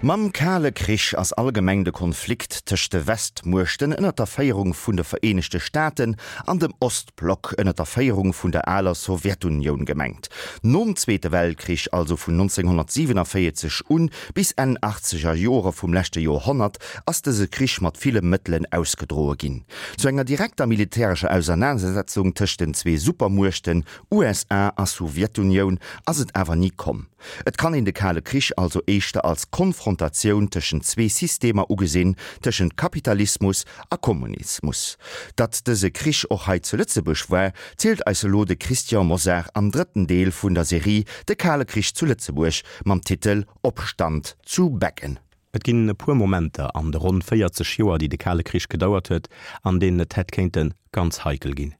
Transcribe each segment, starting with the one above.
Mam Kale Krich ass allgemeng de Konflikt tëscht de Westmuechten ënner der Féierung vun de Vereenegte Staaten an dem Ostblock ënner der Féierung vun der aler Sowjetunioun gemengt. Nom Zweete Weltkrich, also vun 1947 un bis Enn achtzeger Jore vum leschte Joerhonnert, ass dëse Krich mat ville Mëttelen ausgedroe ginn. Zu enger direkter militärescher Ausernanersetzung tëscht den zwee Supermuechten USA a Sowjetunioun ass et awer ni komm. Et kann een de Kale Krich also éischter als Konfrontatioun tëschent zwee Systemer ugesinn, tëschent Kapitalismus a Kommunismus. Datt dëse Krich och hei zu Lëtzebuerg war, zielt eis elo de Christian Mosar am drëtten Deel vun der Serie De Kale Krich zu Lëtzebuerg mam Titel Opstand zu Beggen. Et ginn e puer Momenter an de ronn 40 Joer, déi de Kale Krich gedauert huet, an deenen et hätt kéinte ganz heikel ginn.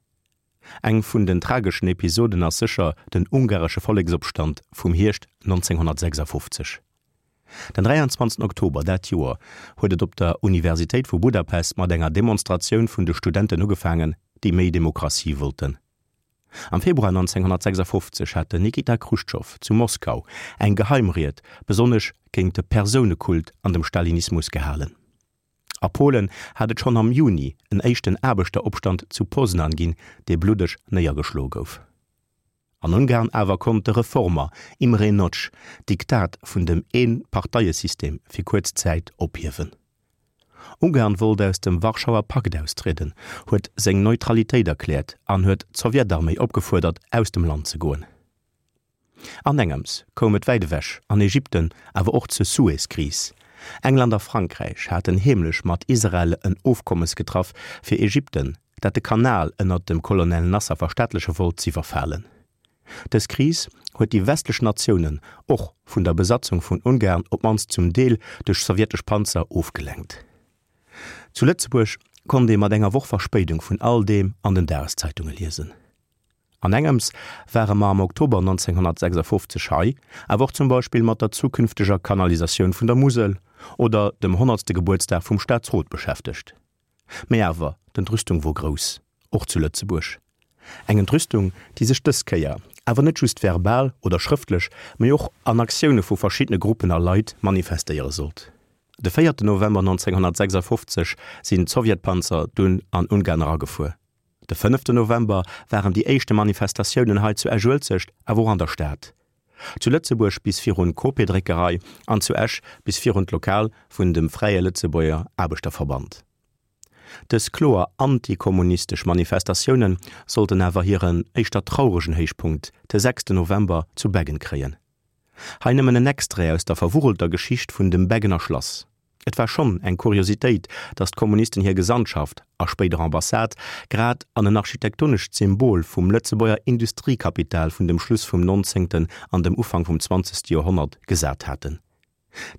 Eng vun den trageschen Episoden ass sécher den ungaresche Volleksopstand vum Hierscht 1956. Den 23 Oktober dat Joer huet et op der Universitéit vu Budapest mat enger Demonstratioun vun de Studenten ugefaangen, déi méi Demokratie wollten. Am Februar 1956 hat den Nikita Chruschtschow zu Moskau eng Geheimried besonnesch géint de Persounekult an dem Stalinismus gehalen. A Polen hat et schonn am Juni en éischten Aarbechteropstand zu Poznan ginn, dee bluddeg néiergeschloe gouf. An Ungarn awer konnt de Reformer Imre Nagy d'Diktat vun dem Een-Parteie-System fir kuerz Zäit ophiewen. Ungarn wollt aus dem Warschauer Pakt austrieden, huet seng Neutralitéit erkläert an huet d'Sowjetarméi opgefuerdert, aus dem Land ze goen. Anengems koum et wäit ewech, an Ägypten, awer och zur Suez-Kris. England a Frankräich haten heemlech mat Israel en Ofkommes getraff, fir Ägypten, dat de Kanal ënnert dem Colonel Nasser verstaatleche wollt, z'iwwerfalen. Dës Kris huet déi westlech Natiounen och vun der Besatzung vun Ungarn, op d'mannst zum Deel duerch sowjetesch Panzer, ofgelenkt. Zu Lëtzebuerg konnt ee mat enger Woch Verspéidung vun all deem an den Dageszeitunge liesen. An engems ware mer am Oktober 1956 hei awer och zum Beispill mat der zukünfteger Kanalisatioun vun der Musel oder dem honnertste Gebuertsdag vum Staatsrot beschäftegt. Mä awer, d'Entrüstung wor grouss, och zu Lëtzebuerg. Eng Entrüstung, déi sech dës Kéier awer net just verbal oder schrëftlech, mä och an Aktioune vu verschiddene Gruppen a Leit manifestéiere sollt. De véierten November 1956 sinn d'Sowjetpanzer dunn an Ungarn eragefuer. De fënneften November waren déi éischte Manifestatiounen hei zu Esch-Uelzecht, awer och an der Stad. Zu Lëtzebuerg bis virun d'Cope-Dréckerei an zu Esch bis virun d'Lokal vun dem Fräie Lëtzebuerger Aarbechterverband. Dës kloer antikommunistesch Manifestatioune sollten awer hiren éischter trauregen Héichpunkt de sechsten November zu Beggen kréien. Hei nëmmen en Extrait aus der verwurrelter Geschicht vun dem Beggener Schlass. Et war schonn eng Kuriositéit, datt d'Kommunisten hir Gesandtschaft, a spéider Ambassade, grad an en architektonescht Symbol vum Lëtzebuerger Industriekapital vun dem Schluss vum nonzéngten an dem Ufank vum zwanzegste Joerhonnert gesat haten.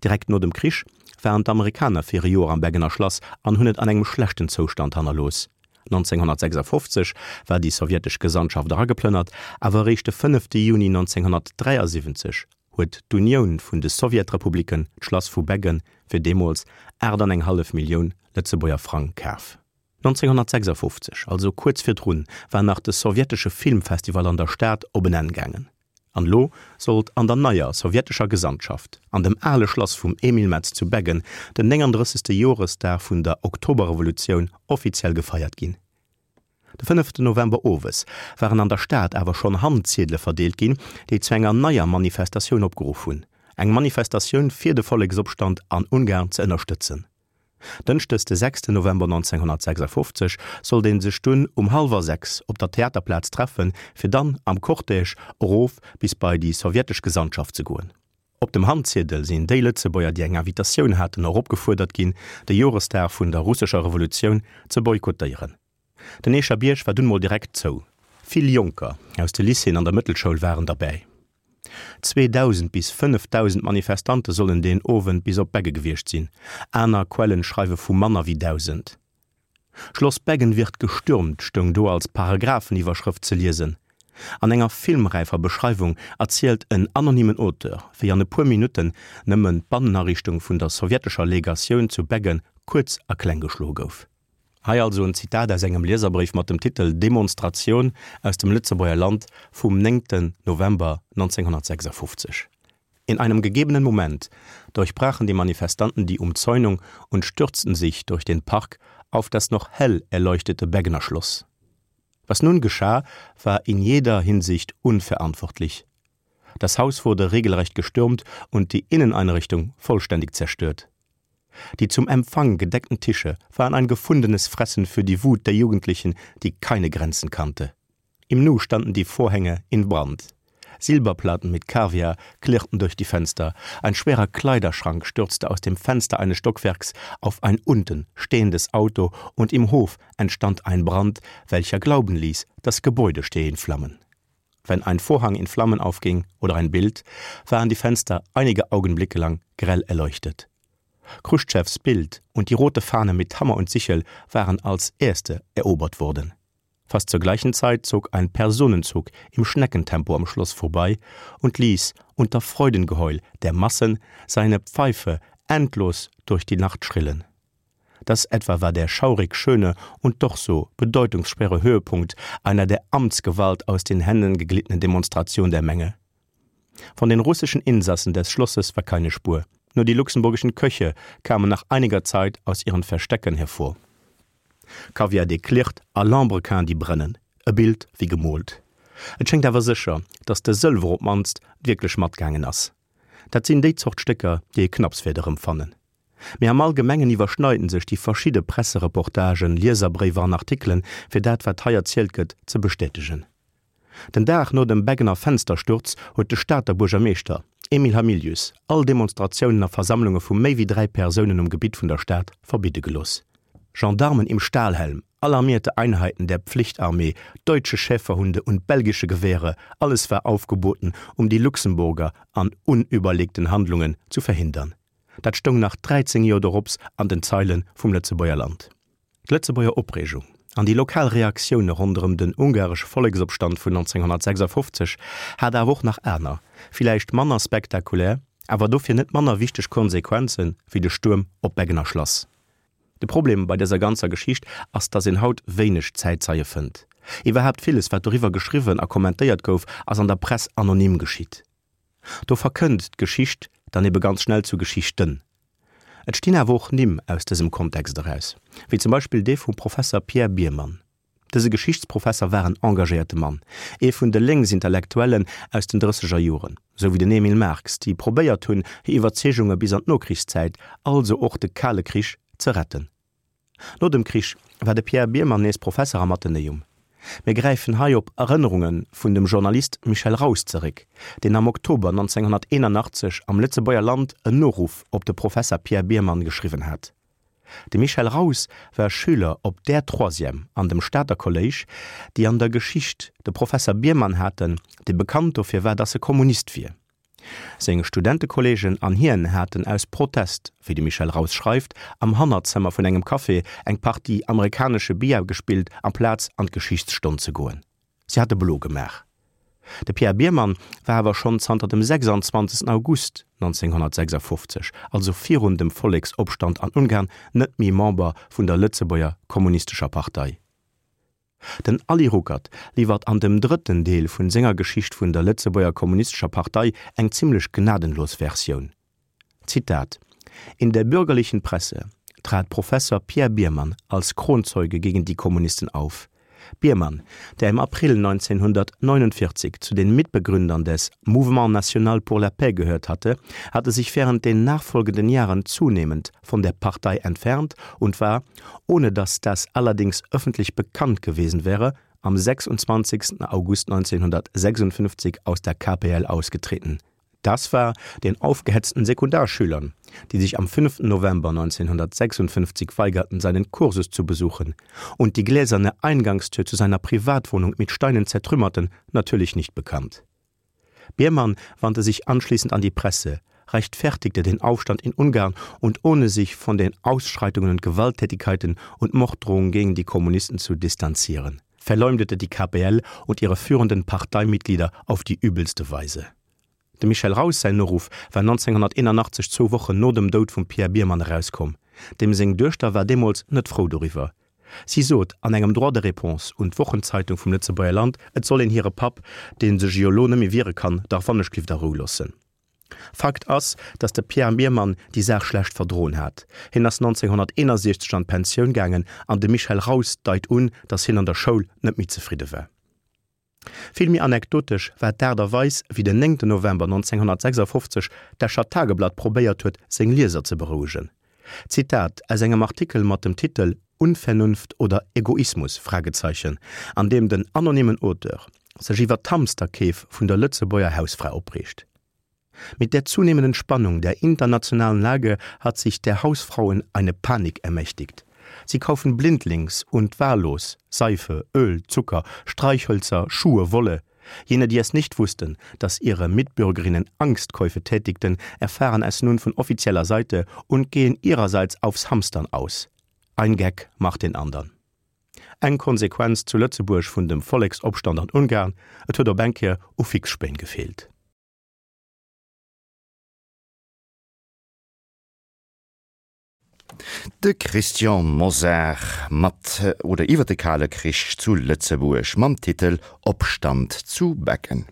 Direkt no dem Krich waren d'Amerikaner fir e Joer am Beggener Schlass an hunn et an engem schlechten Zoustand hannerlooss. 1956 war déi sowjetesch Gesandtschaft erageplënnert, awer eréischt de fënnefte Juni 1973 huet d'Unioun vun de Sowjetrepubliken d'Schlass vu Beggen fir deemools 8 an eng hallef Millioun Lëtzebuerger Frang kaf. 1956, also kuerz virdrun, war nach de sowjetesche Filmfestival an der Stad op en Enn gaangen. An elo sollt an der neier sowjetescher Gesandtschaft, an dem ale Schlass vum Emile Metz zu Beggen, den 39. Joresdag vun der Oktoberrevolutioun offiziell gefeiert ginn. De fënneften November owes waren an der Stad awer schonn Handziedele verdeelt ginn, déi zu enger neier Manifestatioun opgeruff hunn, eng Manifestatioun fir de Volleksopstand an Ungarn ze ënnerstëtzen. Dënschdes de sechsten November 1956 sollt ee sech dunn um hallwer 6 op der Theaterplaz treffen, fir dann am Cortège erof bis bei déi sowjetesch Gesandtschaft ze goen. Op dem Handziedel sinn déi Lëtzebuerger, déi eng Invitatioun haten, och opgefuerdert ginn, de Joresdag vun der russescher Revolutioun ze boykottéieren. Den Eecher Bierg war dunn mol direkt zou. Vill Jonker aus de Lycéeën an der Mëttelschoul waren derbäi. 2.000 bis 5.000 Manifestante sollen deen Owend bis op Begge gewiescht sinn, aner Quellen schreiwe vu manner wéi 1.000. Schloss Beggen wird gestürmt stoung do als Paragrapheniwwerschrëft ze liesen. An enger filmräifer Beschreiwung erzielt en anonymen Auteur, wéi an e puer Minutten nëmmen d'Bannenariichtung vun der sowjetescher Legatioun zu Beggen kuerz a kleng geschloe gouf. Hei also en Zitat aus engem Lieserbréif mat dem Titel Demonstration aus dem Lëtzebuerger Land vum 9 November 1956. In einem gegebenen Moment durchbrachen die Manifestanten die Umzäunung und stürzten sich durch den Park auf das noch hell erleuchtete Beggener Schloss. Was nun geschah, war in jeder Hinsicht unverantwortlich. Das Haus wurde regelrecht gestürmt und die Inneneinrichtung vollständig zerstört. Die zum Empfang gedeckten Tische waren ein gefundenes Fressen für die Wut der Jugendlichen, die keine Grenzen kannte. Im Nu standen die Vorhänge in Brand. Silberplatten mit Kaviar klirrten durch die Fenster. Ein schwerer Kleiderschrank stürzte aus dem Fenster eines Stockwerks auf ein unten stehendes Auto und im Hof entstand ein Brand, welcher glauben ließ, das Gebäude stehe in Flammen. Wenn ein Vorhang in Flammen aufging oder ein Bild, waren die Fenster einige Augenblicke lang grell erleuchtet. Chruschtschows Bild und die rote Fahne mit Hammer und Sichel waren als erste erobert worden. Fast zur gleichen Zeit zog ein Personenzug im Schneckentempo am Schloss vorbei und ließ unter Freudengeheul der Massen seine Pfeife endlos durch die Nacht schrillen. Das etwa war der schaurig schöne und doch so bedeutungsschwere Höhepunkt einer der Amtsgewalt aus den Händen geglittenen Demonstration der Menge. Von den russischen Insassen des Schlosses war keine Spur. Nur die luxemburgischen Köche kamen nach einiger Zeit aus ihren Verstecken hervor. Kaviar dee klirrt a Lambrequin déi brennen. E Bild wéi gemoolt. Et schéngt awer sécher, datt de Sëlwer op d'mannst wierklech matgaangen ass. Dat sinn déi Zort Stécker, déi ee knapps wäert erëmfannen. Mee am Allgemengen iwwerschneiden sech déi verschidde Pressereportagen, Lieserbréiwer an Artikelen, fir dat wat hei erzielt gëtt, ze bestätegen. Den Dag no dem Beggener Fenstersturz huet de Stater Buergermeeschter, Emile Hamilius, all Demonstratiounen a Versammlunge vu méi wéi 3 Persounen um Gebitt vun der Stad verbidde gelooss. Gendarmen im Stahlhelm, alarmierte Einheiten der Pflichtarmee, deutsche Schäferhunde und belgische Gewehre, alles war aufgeboten, um die Luxemburger an unüberlegten Handlungen zu verhindern. Dat stoung nach 13 Joer dorops an den Zeile vum Lëtzebuerger Land. D'Lëtzebuerger Opreegung an déi lokal Reaktioune ronderëm den ungaresche Volleksopstand vun 1956 hat awer och nach aner, villäicht manner spektakulär, awer dofir net manner wichteg Konsequenze wéi de Stuerm op d'Beggener Schlass. De Problem bei dëser ganzer Geschicht ass, datt een haut wéineg Zäitzeie fënnt. Iwwerhaapt villes, wat doriwwer geschriwwen a kommentéiert gouf, ass an der Press anonym geschitt. Do verkënnt d'Geschicht dann ebe ganz schnell zu Geschichten. Et stinn awer och Nimm aus dësem Kontext eraus, wéi zum Beispill dee vum Professer Pierre Biermann. Dëse Geschichtsprofesser war en engagéierte Mann, ee vun de Lénksintellektuellen aus den drësseger Joren, sou wéi den Emil Marx, déi probéiert hunn, hir Iwwerzeegunge bis an d'Nokrichszäit, also och de Kale Krich, ze retten. No dem Krich war de Pierre Biermann nees Professer am Athenäum. Mir gräifen hei op Erënnerunge vun dem Journalist Michel Raus zeréck, deen am Oktober 1981 am Lëtzebuerger Land en Noruff op de Professer Pierre Biermann geschriwwen hat. De Michel Raus war Schüler op där Troisième an dem Stater Kolléisch, déi an der Geschicht de Professer Biermann haten, dee bekannt dofir war, datt e Kommunist wier. Seng Studentekolleegen an hien haten aus Protest, wéi de Michel Raus schreift, am Hannerzëmmer vun engem Café eng Partie amerikanesche Billard gespillt, amplaz an d'Geschichtsstonn ze goen. Si hate blo gemaach. De Pierre Biermann war awer schonn zanter dem 26. August 1956, also virun dem Volleksopstand an Ungarn, net méi Member vun der Lëtzebuerger Kommunistescher Partei. Den Ali Ruckert liwwert an dem drëtten Deel vun senger Geschicht vun der Lëtzebuerger Kommunistescher Partei eng zimlech gnadenlos Versioun. Zitat, In der bürgerlichen Presse trat Professor Pierre Biermann als Kronzeuge gegen die Kommunisten auf. Biermann, der im April 1949 zu den Mitbegründern des Mouvement national pour la paix gehört hatte, hatte sich während den nachfolgenden Jahren zunehmend von der Partei entfernt und war, ohne dass das allerdings öffentlich bekannt gewesen wäre, am 26. August 1956 aus der KPL ausgetreten. Das war den aufgehetzten Sekundarschülern, die sich am 5. November 1956 weigerten, seinen Kursus zu besuchen und die gläserne Eingangstür zu seiner Privatwohnung mit Steinen zertrümmerten, natürlich nicht bekannt. Biermann wandte sich anschließend an die Presse, rechtfertigte den Aufstand in Ungarn und ohne sich von den Ausschreitungen und Gewalttätigkeiten und Morddrohungen gegen die Kommunisten zu distanzieren, verleumdete die KPL und ihre führenden Parteimitglieder auf die übelste Weise. Dem Michel Raus säin Noruff war 1981 zwou Wochen no dem Doud vum Pierre Biermann erauskomm. Deem seng Duechter war deemools net frou doriwwer. Si sot an engem Droit de réponse un d'Wochenzeitung vum Lëtzebuerger Land, et soll een hire Papp, dee sech jo elo net méi wiere kann, dach wannechglift a Rou loossen. Fakt ass, datt de Pierre Biermann déi Saach schlecht verdroen hat. Hien ass 1961 an d'Pensioun gaangen an de Michel Raus deit un, datt hien an der Schoul net méi zefridde war. Vill méi anekdotesch war d'Aart a Weis, wéi den 9 November 1956 d'Escher Tageblatt probéiert huet, seng Lieser ze berouegen. Zitat aus engem Artikel mat dem Titel Unvernunft oder Egoismus? Fragezeichen, an deem den anonymen Auteur sech iwwer d'Hamsterkeef vun der Lëtzebuerger Hausfra opreegt. Mit der zunehmenden Spannung der internationalen Lage hat sich der Hausfrauen eine Panik ermächtigt. Sie kaufen blindlings und wahllos Seife, Öl, Zucker, Streichhölzer, Schuhe, Wolle. Jene, die es nicht wussten, dass ihre Mitbürgerinnen Angstkäufe tätigten, erfahren es nun von offizieller Seite und gehen ihrerseits aufs Hamstern aus. Ein Geck macht den andern. Eng Konsequenz zu Lëtzebuerg vun dem Volleksopstand an Ungarn, et huet op eng Kéier u Fixspéin gefeelt. De Christian Mosar mat oder iwwer de Kale Krich zu Lëtzebuerg mam Titel Opstand zu Becken.